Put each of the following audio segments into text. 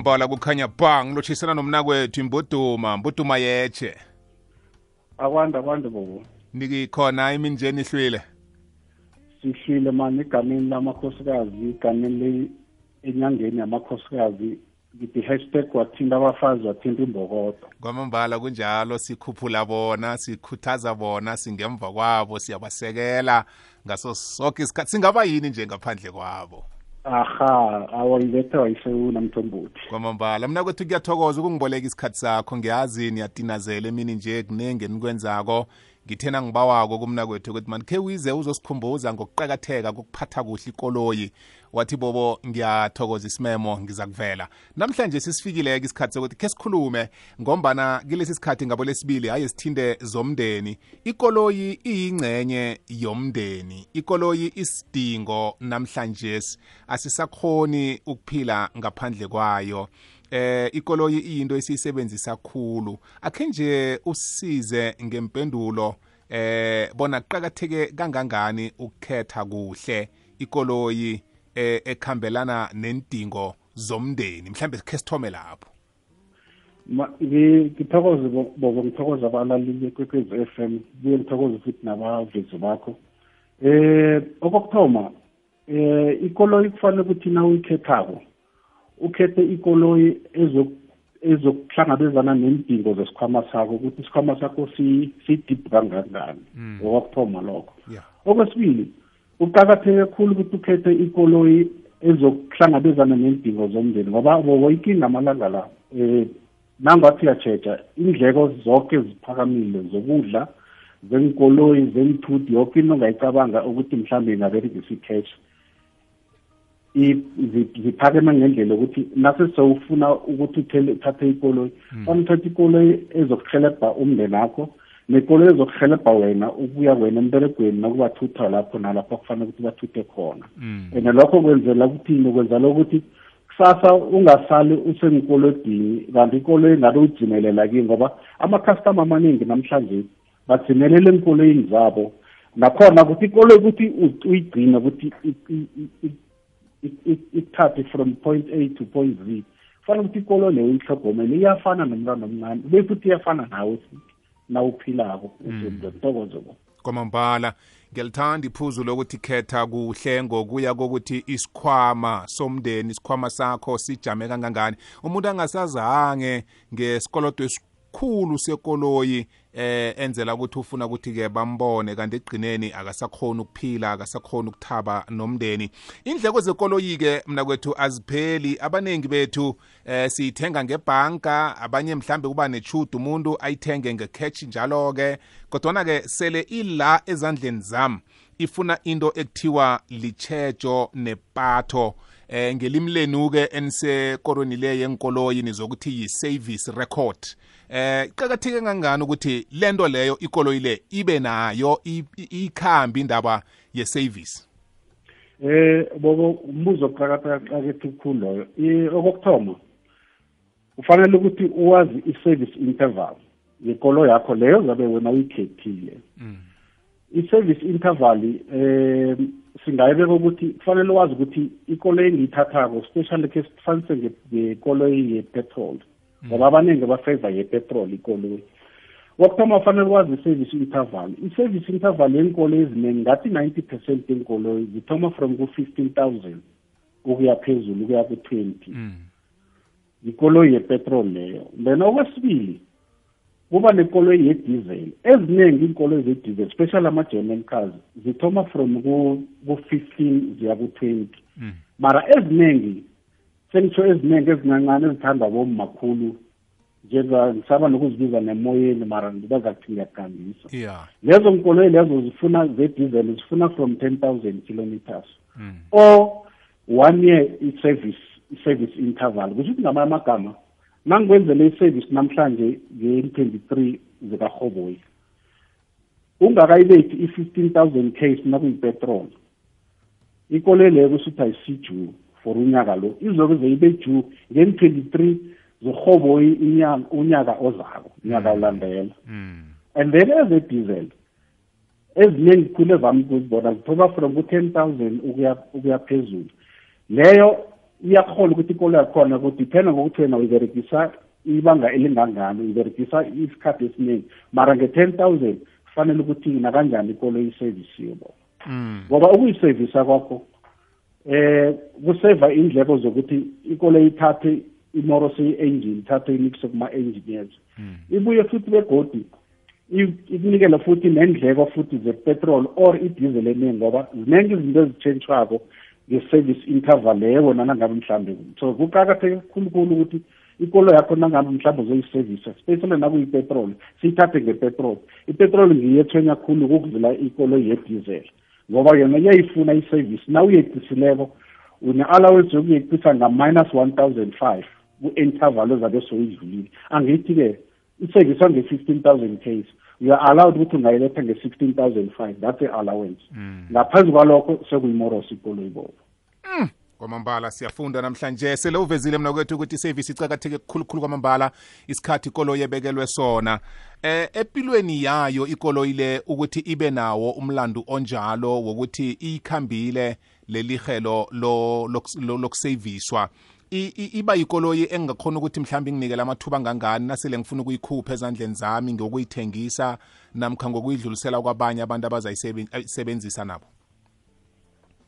kwamambala kukhanya bang lochisana nomnakwethu Mbuduma yeche. Akwanda bobo. Nikikhona iminjeni ihlwile. Sihlile manje igameni lamakhosikazi, igameni enyangeni yamakhosikazi, ngithi hashtag wathinta abafazi wathinta imbokodo. Kwamambala kunjalo sikhuphula bona, sikhuthaza bona, singemva kwabo, siyabasekela ngaso sonke isikhathi. Singaba yini nje ngaphandle kwabo? Aha, awayilethe wayisewuna Mthombothi. Kwamambala mina kwethu kuyathokoza ukungiboleka isikhathi sakho, ngiyazi niyatinazela emini nje kunenge nikwenzako. Ngithena ngibawako kumna kwethu ukuthi man ke wize uzosikhumbuza ngokuqhakatheka kokuphatha kuhle ikoloyi. Wathi bobo ngiyathokoza isimemo ngiza kuvela. Namhlanje sisifikile isikhathi sokuthi ke sikhulume ngombana kilesi sikhathi ngabo lesibili hayi sithinde zomndeni. Ikoloyi iyingcenye yomndeni. Ikoloyi isidingo namhlanje asisakhoni ukuphila ngaphandle kwayo. Ikoloyi iyinto esiyisebenzisa kakhulu. Akhe nje usize ngempendulo bona kuqhakatheke kangangani ukukhetha kuhle ikoloyi ekhambelana nendingo zomndeni. Mhlambe ke sithome lapho. Ngithokoze bobo, ngithokoza abalaleli kwekwezi FM, buye ngithokoze futhi nabavezi bakho. Okokuthoma, ikoloyi kufanele ukuthi na uyikhethako ukhethe ikoloyi ezokuhlangabezana nendingo zesikhwama sakho, ukuthi isikhwama sakho si-deep kangangani. Okokuthoma lokho. Okwesibili, uqakatheke kakhulu ukuthi ukhethe ikoloyi ezokuhlangabezana nendingo zomndeni, ngoba bobo ikinga amalanga la nangathi uyatsheja indleko zonke ziphakamile zokudla, zenkoloyi, zenthuthi, yonke into ongayicabanga ukuthi mhlawumbe ingaberegisa i-cash ziphakeme ngendlela ukuthi nase sewufuna ukuthi uthathe ikoloyi, uthathe ikoloyi ezokuhelebha umndeni wakho nekoloyi ezokuhelebha wena ukuya wena emberegweni nakubathutha lapho nalapho kufanele ukuthi bathuthe khona. And lokho kwenzela ukuthini? Kwenzela ukuthi kusasa ungasali usenkolodini kanti ikoloyi ngabe udzimelela kiyo, ngoba ama-customer amaningi namhlanje badzimelela enkoloyini zabo. Nakhona ukuthi ikoloyi ukuthi uyigcine ukuthi ithathe from point A to point Z, kufanele ukuthi ikoloyi leyo uyihlogomele, iyafana nomntwana omncane, ube futhi iyafana nawe nawuphilako. Ngithokoze bo. Kwamambala ngiyalithanda iphuzu lokuthi khetha kuhle ngokuya kokuthi isikhwama somndeni, isikhwama sakho sijame kangangani. Umuntu angasazange ngesikolodo esikhulu sekoloyi enzela ukuthi ufuna ukuthi ke bambone kanti egcineni akasakhona ukuphila, akasakhona ukuthaba nomndeni. Indleko zekoloyi ke mina kwethu azipheli. Abanengi bethu siyithenga ngebhanka, abanye mhlambe kuba nechudu umuntu ayithenge ngecash njalo ke, kodwa ke sele ila ezandleni zami ifuna into ekuthiwa lichejo nepatho. Ngelimi lenu ke enisekorweni le yenkoloyi nizokuthi yi-service record. Iqhakatheke kangangani ukuthi lento leyo ikoloyi le ibe nayo ikhambi indaba ye-service? Bobo, umbuzo oqhakatheke kakhulu loyo. Okokuthoma, ufanele ukuthi uwazi i-service interval yekoloyi yakho leyo zabe wena uyikhethile. I-service interval singayibeka ukuthi kufanele wazi ukuthi ikoloyi engiyithathako, especially ke sifanise ngekoloyi yepetrol, ngoba abaningi bafavor yepetrol ikoloyi. Wokuthoma kufanele wazi i-service interval. I-service interval yenkoloyi eziningi ngathi 90% yenkoloyi zithoma from ku-15,000 ukuya phezulu ukuya ku-20. Ikoloyi yepetrol leyo. Then okwesibili kuba nekoloyi yediesel. Eziningi inkoloyi zediesel, especially ama-German cars, zithoma from ku-15 ziya ku-20. Mara eziningi, sengitsho eziningi ezincancane ezithanda bommakhulu, ngisaba nokuzibiza nemoyeni, mara ngibazakuthi ngiyakugambisa. Lezo nkoloyi lezo zifuna zediesel, zifuna from 10,000 kilometers. Or 1 year i-service interval. Kusho ukuthi ngamanye amagama, nangikwenzele i-service namhlanje nge-23 zikaRhoboyi, ungakayibethi i-15,000 case nakuyipetrol, ikoloyi leyo kusuthi ayisi-due for unyaka lo, izobe zeyibe due nge-23 zirhoboyi unyaka ozako, unyaka olandela. And then eze-diesel eziningi khulu evami ukuzibona zithoma from ku-10,000 ukuya phezulu. Leyo iyakhona ukuthi ikolo yakhona kudiphenda ngokuthi wena uyiberegisa ibanga elingangani, uyiberegisa isikhathi esiningi, mara nge-10,000 kufanele ukuthi nakanjani ikolo isevisiwe bo. Ngoba ukuyisevisa kwakho kuseva indleko zokuthi ikolo ithathe imoro seyi-engine, ithathe imikise kuma-engineers, ibuye futhi begodi ikunikela futhi nendleko futhi zepetrol or idizeli eningi, ngoba ziningi izinto ezitshentshwako nge-service interval leyo wena nangabe mhlambe. So kuqakatheke khulukhulu ukuthi ikolo yakho nangabe mhlambe uzoyisevisa, especially nakuyipetrol, siyithathe ngepetrol. Ipetrol ngiyo ethwenya khulu ukudlula ikolo yedizeli, ngoba yona iyayifuna isevisi. Na uyeqisileko une-allowance yokuyeqisa nga--1,005 ku-interval ezabe soyidlulile. Angithi-ke isevisa nge-15,000 case, you are allowed ukuthi ungayiletha nge-16,005, that's a-allowance. Ngaphezu kwalokho sekuyimoros ikolo ibobo. Kwamambala siyafunda namhlanje, sele uvezile mna kwethu ukuthi isevisi icakatheke kukhulukhulu kwamambala isikhathi ikolo yebekelwe sona. Empilweni yayo ikolo ile ukuthi ibe nawo umlando onjalo wokuthi ikhambile lelihelo lokuseviswa, iba ikoloyi engakhona ukuthi mhlawumbe nginikele amathuba ngangani nasele ngifuna ukuyikhupha ezandleni zami ngokuyithengisa namkha ngokuyidlulisela kwabanye abantu abazayisebenzisa nabo.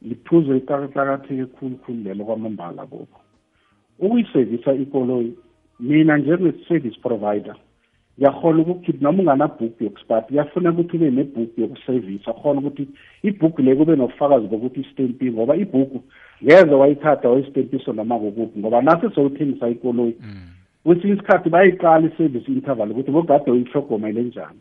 Liphuzo iqakatheke khulukhulu lelo kwamambala bobo. Ukuyisevisa ikoloyi, mina njenge-service provider yakhona ukukhipha noma ungana-book yokuspart, yafuna ukuthi ube ne-book yokusevisa, khona ukuthi i-book le kube nobufakazi bokuthi istempiwe, ngoba i-book ngeze wayithatha wayistempiso noma kokuphi, ngoba nase sowuthengisa ikoloyi kwesinye isikhathi bayiqala i-service interval ukuthi bogade uyihlogomele njani,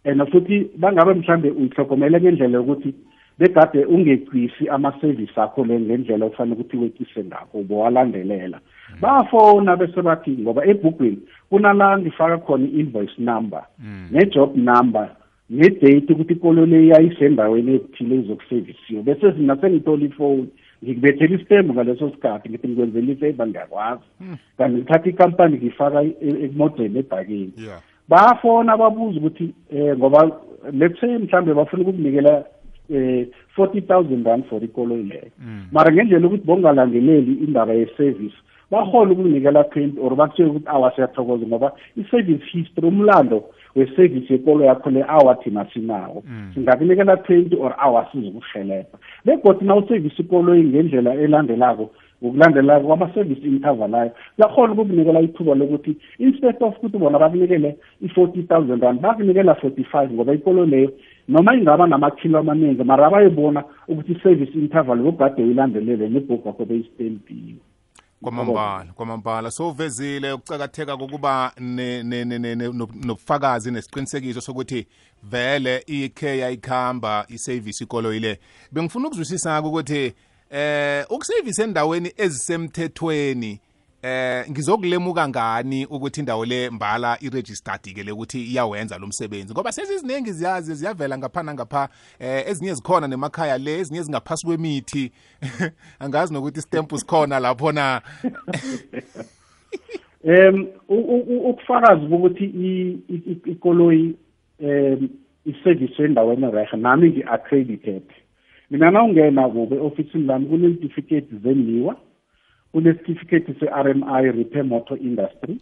and futhi bangabe mhlambe uyihlogomele ngendlela yokuthi begade ungeqisi ama-service akho le ngendlela ofanele ukuthi weqise ngakho bowalandelela. Bafona bese bathi ngoba ebhukwini kunala ngifaka khona i-invoice number ne-job number ne-date ukuthi ikolo le yayisendaweni ethile izokusevisiwe, bese sina sengithola ifoni ngikubethela isitembu ngaleso sikhathi ngithi ngikwenzela ifavor ngiyakwazi, kanti ngithatha ikampani ngifaka emodeni ebhakeni. Bafona babuza ukuthi ngoba let's say mhlambe bafuna ukukunikela 40,000 rand for ikolo leyo, mara ngendlela ukuthi bongalandeleli indaba ye-service bahole ukunikela 20 or bakutshela ukuthi awasiyathokoza ngoba i-service history, umlando we-service yekolo yakho le awathina sinawo, singakunikela 20 or awasiza ukuhelebha. Begodwa na usevisi ikolo ngendlela elandelako, ngokulandelako kwama-service interval ayo, yakhona ukukunikela ithuba lokuthi instead of ukuthi bona bakunikele i-40,000 rand bakunikela 45, ngoba ikolo leyo noma ingaba namakhilo amaningi mara bayibona ukuthi i-service interval bogade uyilandelele nebhuku yakho beyistempiwe. Kwamambala so uvezile ukucakatheka kokuba nobufakazi nesiqinisekiso sokuthi vele ikhe yayikhamba isevisi ikolo ile. Bengifuna ukuzwisisa ukuthi ukusevisa endaweni ezisemthethweni ngizokulemuka ngani ukuthi indawo le mbala iregistered ke ukuthi iyawenza lo msebenzi, ngoba seziningi ziyavela ngapha nangapha, ezinye zikhona nemakhaya le, ezinye zingaphasi kwemithi angazi nokuthi stamp sikhona lapho na. Ukufakazi ukuthi ikoloyi iservice endaweni rehe nami ngi-accredited. Mina nawungena kube ofisini lami kune-certificate zeniwa, kune-certificate se-RMI Repair Motor Industry,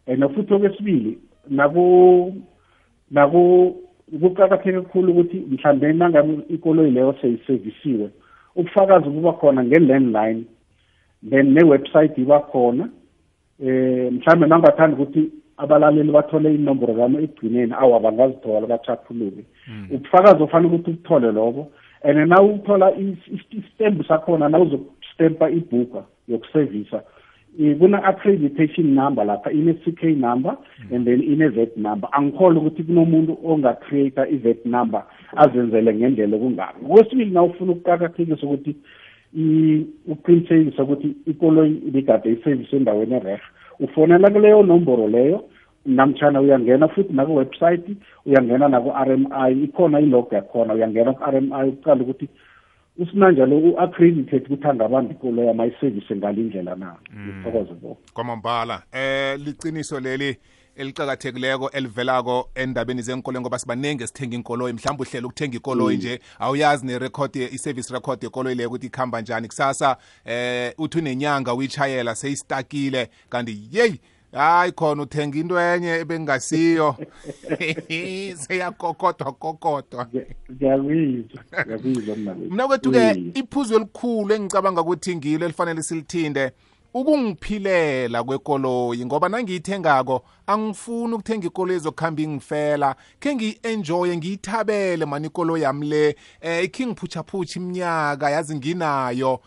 and futhi okwesibili kuqakatheke kakhulu ukuthi mhlambe nangabe ikoloyi leyo seyisevisiwe ubufakazi buba khona nge-landline, then ne-website iba khona. Mhlambe nangathanda ukuthi abalaleli bathole inombolo zami ekugcineni bangazithola bachaphuluke, ubufakazi ofanele ukuthi ubuthole lobo. And now uthola istembu sakhona na uzokustempa ibhuka yokusevisa, kuna-accreditation number lapha, ine-CK number and then ine-VAT number. Angikholwa ukuthi kunomuntu ongacreate i-VAT number azenzele ngendlela okungako. Okwesibili na ufuna ukuqakathekisa ukuthi uqinisekisa ukuthi ikoloyi ibigade isevisi endaweni erehe, ufonela kuleyo nomboro leyo, namtshana uyangena futhi naku-website, uyangena naku-RMI, ikhona ilog yakhona, uyangena ku-RMI uqala ukuthi usinanjalo u-accredited ukuthi angabamba ikolo yamayisevisi ngalindlela na. Ngithokoze bo. Kwamambala liciniso leli eliqhakathekileko elivelako endabeni zenkoloyi ngoba sibanenge sithenga inkoloyi mhlawumbe uhlela ukuthenga ikoloyi nje awuyazi nerecord i-service record yekoloyi leyo ukuthi ikhamba njani kusasa uthi unenyanga uyichayela seyistakile kanti yeyi hayi khona uthenga into enye ebengasiyo seyakokodwa ngiyabizwa mna kwethu-ke iphuzu elikhulu engicabanga ukuthi ngilo elifanele silithinde ukungiphilela kwekoloyi ngoba nangiyithengako angifuni ukuthenga ikoloyi ezokuhamba ingifela khe ngiyi-enjoye ngiyithabele mani ikoloyi yami le ikhe ngiphutsha iminyaka yazi nginayo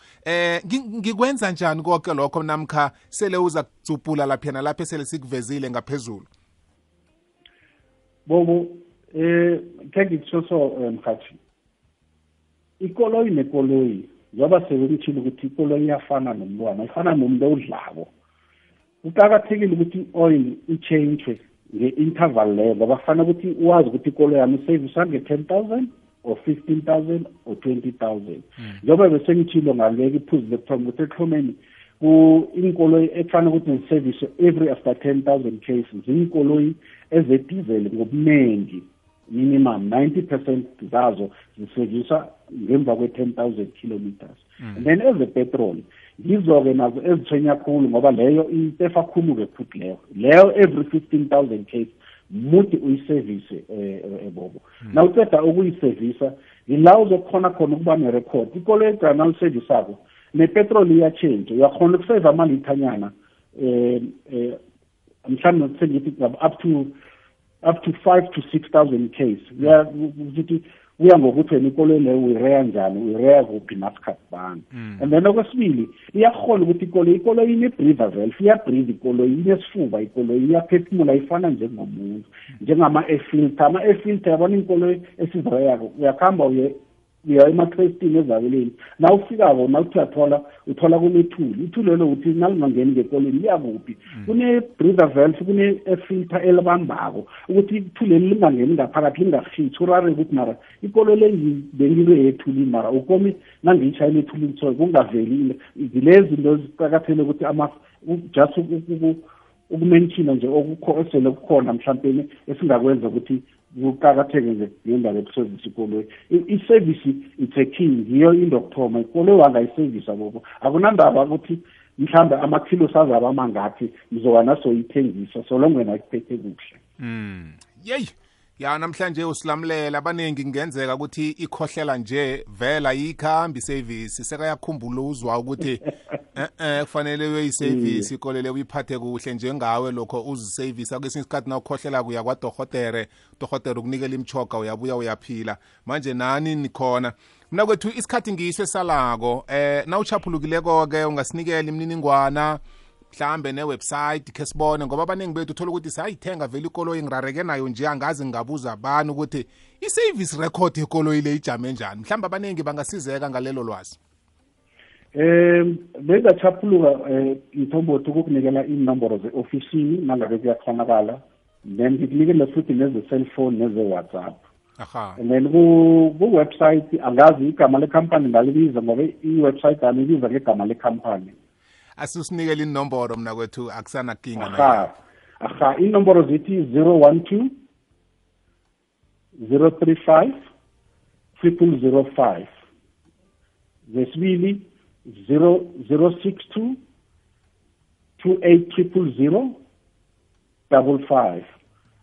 ngikwenza njani konke lokho namkha sele uza kutsupula laphana lapho sele sikuvezile ngaphezulu bobo khe ngitsho so mkhathi ikoloyi nekoloyi njengoba sebengitshile ukuthi ikoloyi iyafana nomntwana ifana nomuntu owudlako kuqakathekile ukuthi i-oil i-change nge-interval leyo ngoba kufanele ukuthi wazi ukuthi ikoloyi yami isevisa nge-10,000 or 15,000 or 20,000 njengoba besengitshilo ngaleka iphuzu lekuthoma ukuthi ekuhlomeni inkoloyi ekufanele ukuthi ngisevise every after 10,000 cases zinkoloyi ezedizeli ngobuningi minimum 90% zazo ziseviswa ngemva kwe-10,000 kilometers and then ezepetrol yizo-ke nazo ezithwenya khulu ngoba leyo itefa khulu-ke futhi leyo every 15,000 case muthi uyisevise bobo na uceda ukuyisevisa yila uzokhona khona ukuba nerecord ikolo egcana ulisevisako nepetrol iyachange uyakhona ukuseva amalithanyana mhlawumbe ngithi up to 5 to 6,000 case kuya ngokuthi wena ikoloyi leyo uyireya njani uyireya kuphi nasikhathi bani and then okwesibili iyakhona ukuthi ikoloyi ine-breather valve iyabreathe ikoloyi inesifuba ikoloyi iyaphefumula ifana njengomuntu njengama-air filter ama-air filter yabona inkoloyi esizireyako uyakuhamba uya ema-trastini ezabeleni na ufikako na uthi uthola kunethuli ithuli lelo uthi nalingangeni ngekoleni liyakuphi kune-breather valve kune-filter elibambako ukuthi ithuli leli lingangeni ngaphakathi lingafithi urare ukuthi mara ikolo le bengile ethulini mara ukomi nangiyishayela ethulini so kungaveli zilezi zinto ziqakathekile ukuthi just ukumenshina nje esele kukhona mhlawumbe esingakwenza ukuthi kuqakatheke nje ngendaba yokusevisa ikoloyi i-service it's a key yiyo into yokuthoma ikoloyi wangayisevisa bobo akunandaba ukuthi mhlawumbe amakhilo sazaba amangaphi mzoba nasoyithengisa so long wena ikuphethe kuhle yeyi ya namhlanje usilamulela abaningi kungenzeka ukuthi ikhohlela nje vela yikhambi isevisi sekayakhumbula uzwa ukuthi kufanele uyoyisevisi ikolele uyiphathe kuhle njengawe lokho uzisevisa kwesinye isikhathi na ukhohlela kuya kwadohotere ukunikela imchoga uyabuya uyaphila manje nani nikhona mina kwethu isikhathi ngiyiso esalako na uchaphulukileko-ke ungasinikela imininingwana mhlambe ne-website khe sibone ngoba abaningi bethu uthola ukuthi sayithenga vele ikoloyi ngirareke nayo nje angazi ngabuza abantu ukuthi i-service record yekoloyi le ijame njani mhlawumbe abaningi bangasizeka ngalelo lwazi bengachaphuluka mthombothi ukukunikela inomboro ze-ofisini nangabe kuyakhonakala then ngikunikele futhi neze-cellphone neze-whatsapp and then ku-website angazi igama lekhampani ngalibiza ngoba i-website alibiza ngegama lekhampani asusinikele inomboro mna kwethu akusanakinga aha inomboro zithi 012 035 0005 zesibili 062 28 00055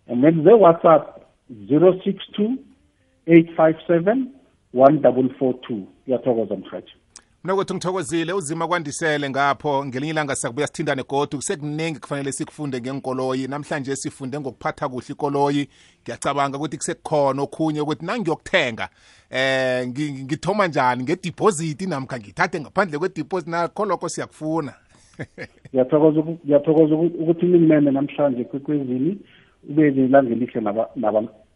and then the WhatsApp 062 857 1442 yathokoza mkhathi mina kwethu ngithokozile uzima kwandisele ngapho ngelinye ilanga siyakubuya sithindane godu kusekuningi kufanele sikufunde ngenkoloyi namhlanje sifunde ngokuphatha kuhle ikoloyi ngiyacabanga ukuthi kusekukhona okhunye ukuthi nangiyokuthenga ngithoma njani ngedeposit namkha ngithathe ngaphandle kwedeposit nakho lokho siyakufuna ngiyathokoza ukuthi nimene namhlanje kwekwezini ube nelanga elihle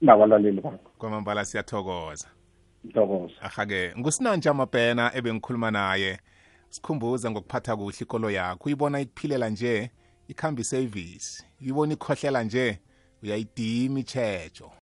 nabalaleli bakho kwamambala siyathokoza Ntokoza. Aha-ke ngusinanje amabhena ebengikhuluma naye sikhumbuza ngokuphatha kuhle ikolo yakho uyibona ikuphilela nje ikhamba isevisi uyibona ikhohlela nje uyayidima ichejo